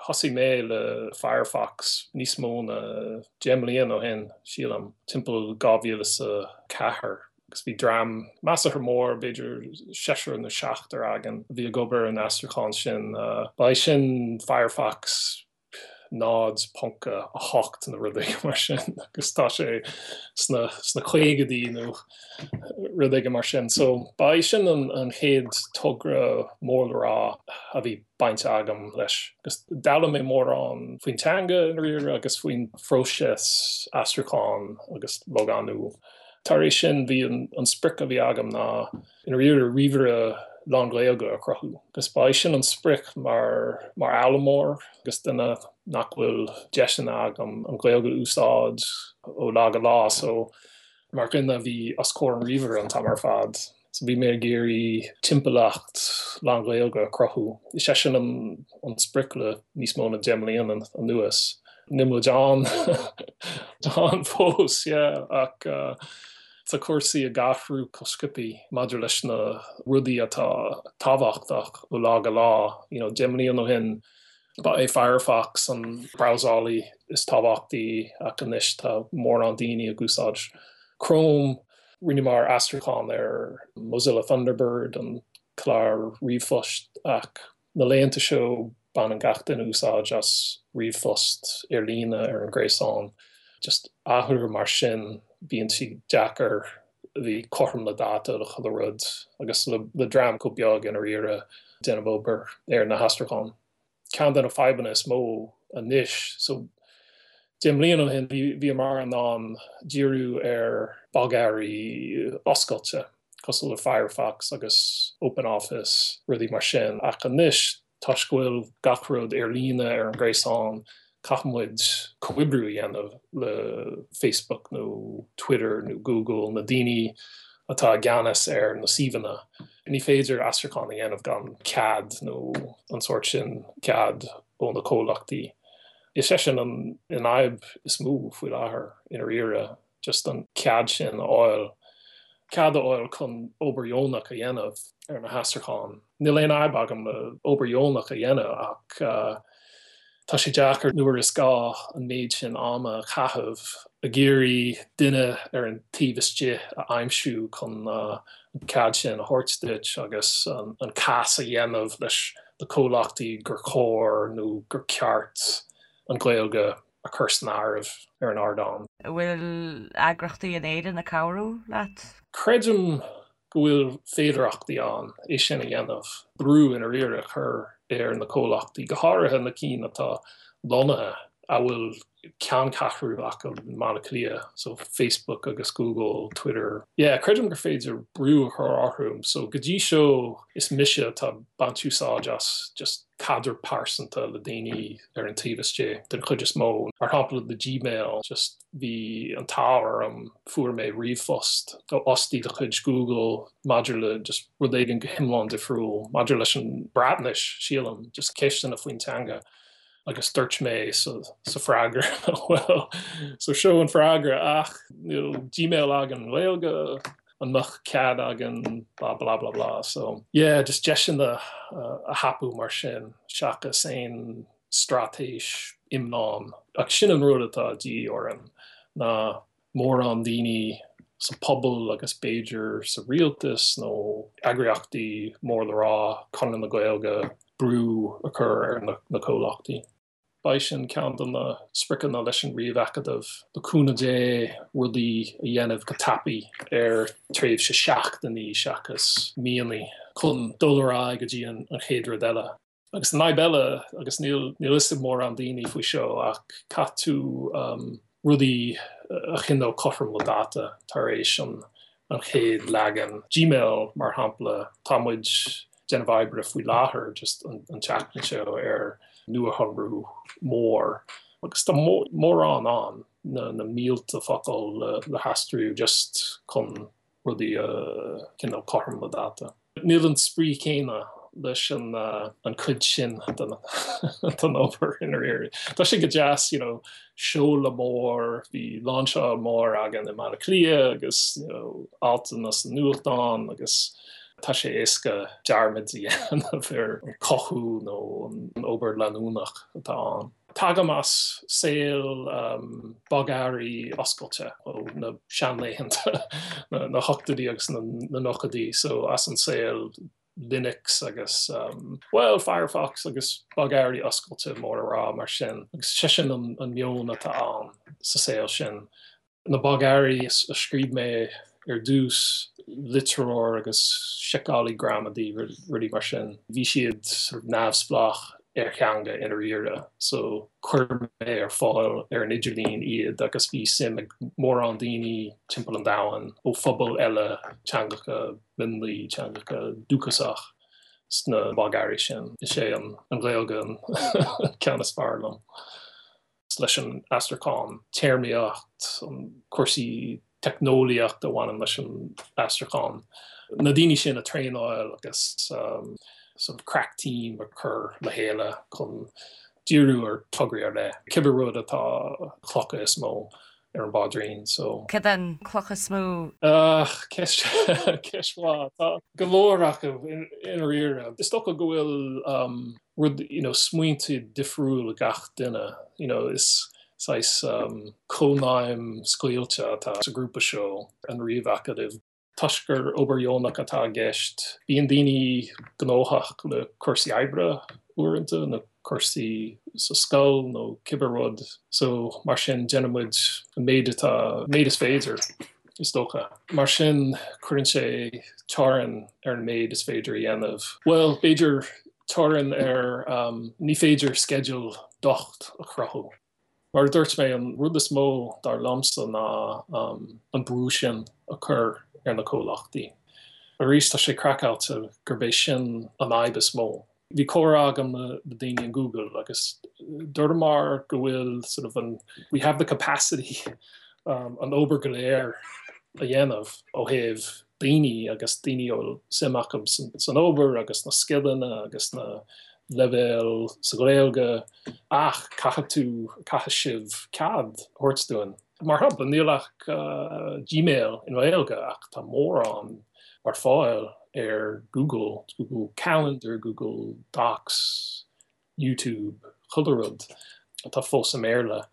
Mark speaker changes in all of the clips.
Speaker 1: Thosaigh mé le Firefox níos mó na 10 mbliana ó shin, sílim, timpeall 2004, agus bhí dream measartha mór, b'fhéidir seisear nó seachtar againn, a bhí ag obair ar an aistriúchán sin. Ba é sin Firefox 0.8 nó rud éigin mar sin agus tá sé sna sna caogaidí nó rud éigin mar sin. So ba é sin an an chéad togra mór le rá a bhí baint agam leis. Agus d'fhoghlaim mé mórán faoin teanga i ndáiríre agus faoin phróiseas aistriúcháin agus logánú. Tar éis sin bhí an an sprioc a bhí agam ná i ndáiríre ríomhaire lán-Ghaeilge a chruthú. Agus ba é sin an sprioc mar mar fhoghlaimeoir agus duine nach bhfuil deiseanna agam an Ghaeilge a úsáid ó lá go lá so mar dhuine a bhí os comhair an ríomhaire an t-am ar fad. So bhí mé ag iarraidh timpeallacht lán-Ghaeilge a chruthú. Is é sin an an sprioc le níos mó na 10 mbliana anuas. Níl muid ann ann fós, yeah, ach Tá cúrsaí ag athrú chomh sciobtha maidir leis na rudaí atá tábhachtach ó lá go lá. You know, 10 mbliana ó shin ba é Firefox an brabhsálaí is tábhachtaí ach anois tá mórán daoine ag úsáid Chrome. Rinneamar aistriúchán ar Mozilla Thunderbird, an clár ríomhphoist, ach Na laethanta seo baineann gach duine úsáid as ríomhphost ar líne ar an gréasán. Just athrú mar sin bíonn sé deacair a bheith cothrom le dáta le chuile rud agus le dream chomh beag i ndáiríre déanamh obair ar na haistriúcháin. Ceann de na fadhbanna is mó anois so 10 mbliana ó shin bhíomar in ann díriú ar bogearraí oscailte. cosúil le Firefox agus OpenOffice, rudaí mar sin. Ach anois, toisc go bhfuil gach rud ar líne ar an ghréasán, caithfidh muid comhoibriú a dhéanamh le Facebook nó Twitter nó Google, na daoine atá i gceannas ar na suíomhanna. Ní féidir aistriúchán a dhéanamh gan cead nó an sórt sin cead ó na comhlachtaí. Is é sin an fhadhb is mó faoi láthair i ndáiríre. just an cead sin a fháil, cead a fháil chun obair dheonach a dhéanamh ar na haistriúcháin. Níl aon fhadhb agam le obair dheonach a dhéanamh ach tá sé deacair nuair is gá an méid sin ama a chaitheamh ag iarraidh duine ar an taobh istigh a aimsiú chun an cead sin a thabhairt duit agus an cás a dhéanamh leis na comhlachtaí gur chóir nó gur ceart an Ghaeilge a chur san áireamh ar an ardán.
Speaker 2: An bhfuil eagraíochtaí in Éirinn ag cabhrú leat?
Speaker 1: Creidim go bhfuil féidearthachtaí ann é sin a dhéanamh, brú i ndáiríre a chur ar na comhlachtaí, go háirithe na cinn atá lonnaithe, a bhfuil ceanncheathrú acu i mBaile Átha Cliath, so Facebook agus Google, Twitter. Yeah, creidim gur féidir brú a chur orthu. So go dtí seo is mise atá ag baint úsáid as just caidreamh pearsanta le daoine ar an taobh istigh den chuid is mó. Mar shampla le Gmail, just bhí an t-ádh orm, fuair mé ríomhphost ó fhostaí de chuid Google maidir le just rud éigin go hiomlán difriúil, maidir leis an Bhreatnais, sílim, just ceisteanna faoin teanga. Agus dúirt mé sa sa freagra, well, so seo an freagra ach níl Gmail againn i nGaeilge, an mbeadh cead againn blah blah blah blah so yeah just deiseanna a thapú mar sin seachas aon straitéis iomlán ach sin an rud atá de dhíth orainn ná mórán daoine sa phobal agus b'fhéidir sa rialtas nó eagraíochtaí mór le rá, Conradh na Gaeilge, brú a chur ar na comhlachtaí. Beidh sin ceann de na spriocanna leis an Ríomh-Acadamh, le cúnamh Dé, rudaí a dhéanamh go tapaidh ar tréimhse seachtainí seachas míonna chun dul ar aghaidh go dtí an chéad rud eile. Agus an fhadhb eile, agus níl níl fhios ag mórán daoine faoi seo, ach caithfidh tú rudaí a choinneáil cothrom le dáta tar éis an an chéad leagan. Gmail, mar shampla, tá muid déanamh oibre faoi láthair just an tseachtain seo ar nuashonrú mór agus tá mórán ann, na mílte focal le haistriú just chun rudaí a choinneáil cothrom le dáta. Níl an spraoi céanna leis an an cuid sin den den obair i ndáiríre. Tá sé go deas, you know, seoladh mór, bhí lainseáil mór againn i mBaile Átha Cliath agus, you know, altanna sa nuachtán agus. Tá sé éasca dearmad a dhéanamh ar an chothú nó an obair leanúnach atá ann. Tagaim as saol bogearraí oscailte ó na seanlaethanta, na hochtóidí agus na nóchaidí, so as an saol Linux agus, bhuel, Firefox agus bogearraí oscailte mór le rá mar sin. Agus sé sin an meon atá ann sa saol sin. Na bogearraí a scríobh mé ar dtús, litreoir agus seiceálaí gramadaí, rudaí mar sin, bhí siad sort of neamhspleách ar theanga i ndáiríre so chuir mé ar fáil ar an idirlíon iad agus bhí suim ag mórán daoine timpeall an domhain ó phobail eile, teangacha mionlaigh, teangacha dúchasach sna bogearraí sin. Is é an Ghaeilge an ceann is fearr liom. leis an aistriúchán, téarmaíocht, cúrsaí teicneolaíochta a bhaineann leis an aistriúchán, na daoine sin a traenáil agus sort of crack team a chur le chéile chun díriú ar tograí ar leith, cibé rud atá clocha is mó ar an bpaidrín so.
Speaker 2: Cad é an cloch is mó?
Speaker 1: Ceist ceist mhaith. Tá go leor acu i ndáiríre. Is dócha go bhfuil rud, you know, smaointe difriúil ag gach duine, you know, is saghas cónaidhm scaoilte atá sa ghrúpa seo, an Ríomh-Acadamh. Toisc gur obair dheonach atá i gceist, bíonn daoine gnóthach le cúrsaí oibre uaireanta nó cúrsaí sa scoil nó cibé rud so mar sin déanann muid an méid atá, méid is féidir is dócha. Mar sin cuireann sé teorainn ar an méid is féidir a dhéanamh. Bhuel, b'fhéidir teorainn ar, ní féidir sceideal docht a chruthú. Mar a dúirt mé, an rud is mó dar liomsa ná an brú sin a chur ar na comhlachtaí. Arís, tá sé craiceáilte gurb é sin an fhadhb is mó. Bhí comhrá agam le daoine in Google agus dúramar go bhfuil sort of an, we have the capacity an obair go léir a dhéanamh ó thaobh daoine agus daoine a bhfuil suim acu san obair agus na scileanna agus na leibhéil sa Ghaeilge ach caithfidh tú, caithfidh sibh cead a thabhairt dúinn. Mar shampla, níl ach Gmail i nGaeilge ach tá mórán ar fáil ar Google, Google Calendar, Google Docs, YouTube, chuile rud atá fós i mBéarla.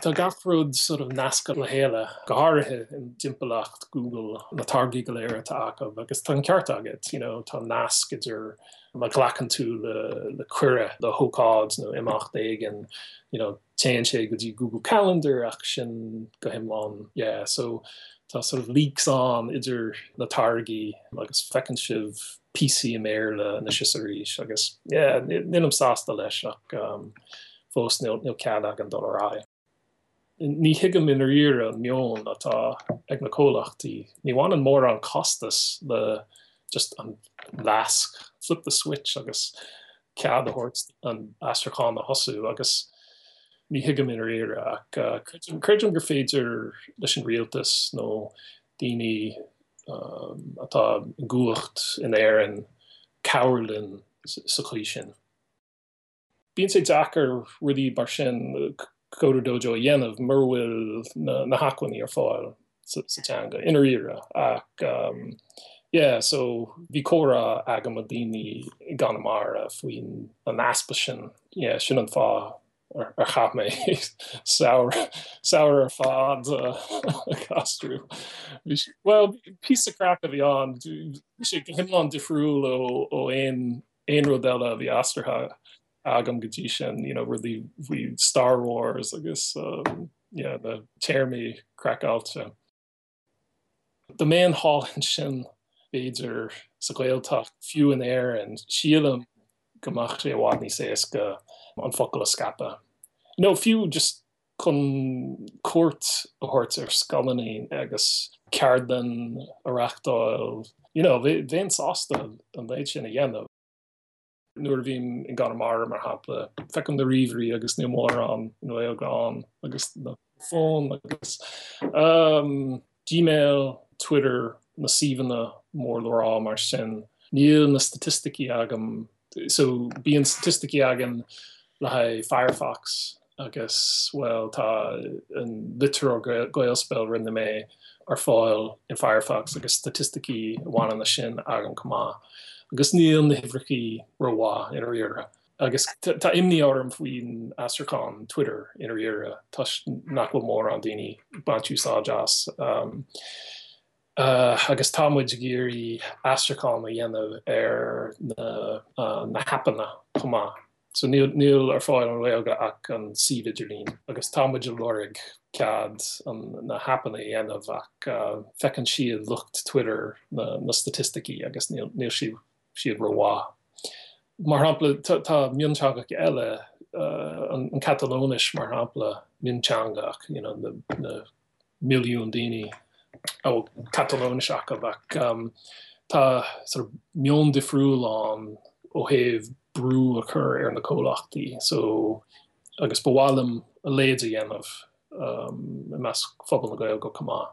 Speaker 1: Tá gach rud sort of nasctha le chéile, go háirithe i dtimpeallacht Google, na táirgí go léir atá acu agus tá an ceart agat, you know, tá nasc idir má ghlacann tú le cuireadh le hócáid nó imeacht éigin, you know, téann sé go dtí Google Calendar ach sin go hiomlán, yeah, so tá sort of leaks ann idir na táirgí agus feiceann sibh píosaí i mBéarla anois is arís agus yeah, nílim sásta leis ach um, fós níl cead againn dul ar aghaidh. Ní thuigim i ndáiríre an meon atá ag na comhlachtaí. Ní bhaineann mórán costas le just an lasc, flip the switch agus cead a thabhairt an aistriúchán a thosú agus ní thuigim i ndáiríre ach creidim gur féidir leis an rialtas nó daoine atá i gcumhacht in Éirinn cabhrú linn sa chaoi sin. Bíonn sé deacair rudaí mar sin, Coder Dojo a dhéanamh mura bhfuil na hacmhainní ar fáil sa teanga, i ndáiríre. Ach yeah, so bhí comhrá agam le daoine i gConamara faoin an easpa sin. Yeah, sin an fáth ar chaith mé samhradh ar fad ag aistriú. Bhuel, píosa craic a bhí ann. Bhí sé go hiomlán difriúil ó aon aon rud eile a bhí aistrithe agam go dtí sin, you know, rudaí faoi Star Wars agus um, yeah, na téarmaí craiceáilte. Dá mbeinn thall ansin b'fhéidir sa Ghaeltacht, fiú in Éirinn, sílim go mbeadh sé i bhfad níos éasca an focal a scaipeadh. Nó fiú just chun cuairt a thabhairt ar scoileanna agus ceardlann a reachtáil, you know, bheinn sásta an méid sin a dhéanamh. Nuair a bhím i gConamara, mar shampla, feicim na ríomhairí agus níl mórán i nGaeilge ann agus na fóin agus um, Gmail, Twitter, na suíomhanna mór le rá mar sin. Níl na staitisticí agam So bíonn staitisticí againn le haghaidh Firefox agus, bhuel, tá an litreoir Gaelspell rinne mé. ar fáil in Firefox agus staitisticí a bhaineann leis sin agam chomh maith. Agus níl na huimhreachaí rómhaith i ndáiríre. Agus tá imní orm faoin aistriúchán Twitter i ndáiríre toisc nach bhfuil mórán daoine ag baint úsáid as. Agus tá muid ag iarraidh aistriúchán a dhéanamh ar na haipeanna chomh maith. So níl ar fáil i nGaeilge ach an suíomh idirlín agus tá muid ag lorg cead na haipeanna a dhéanamh ach feiceann siad lucht Twitter na staitisticí agus níl siad rómhaith. Mar shampla tá mionteangacha eile, an Catalóinis mar shampla, mionteanga ach you know na milliún daoine a bhfuil Catalóinis acu ach tá sort of meon difriúil ann ó thaobh brú a chur ar na comhlachtaí so agus ba mhaith liom a leithéid a dhéanamh i measc phobal na Gaeilge chomh maith.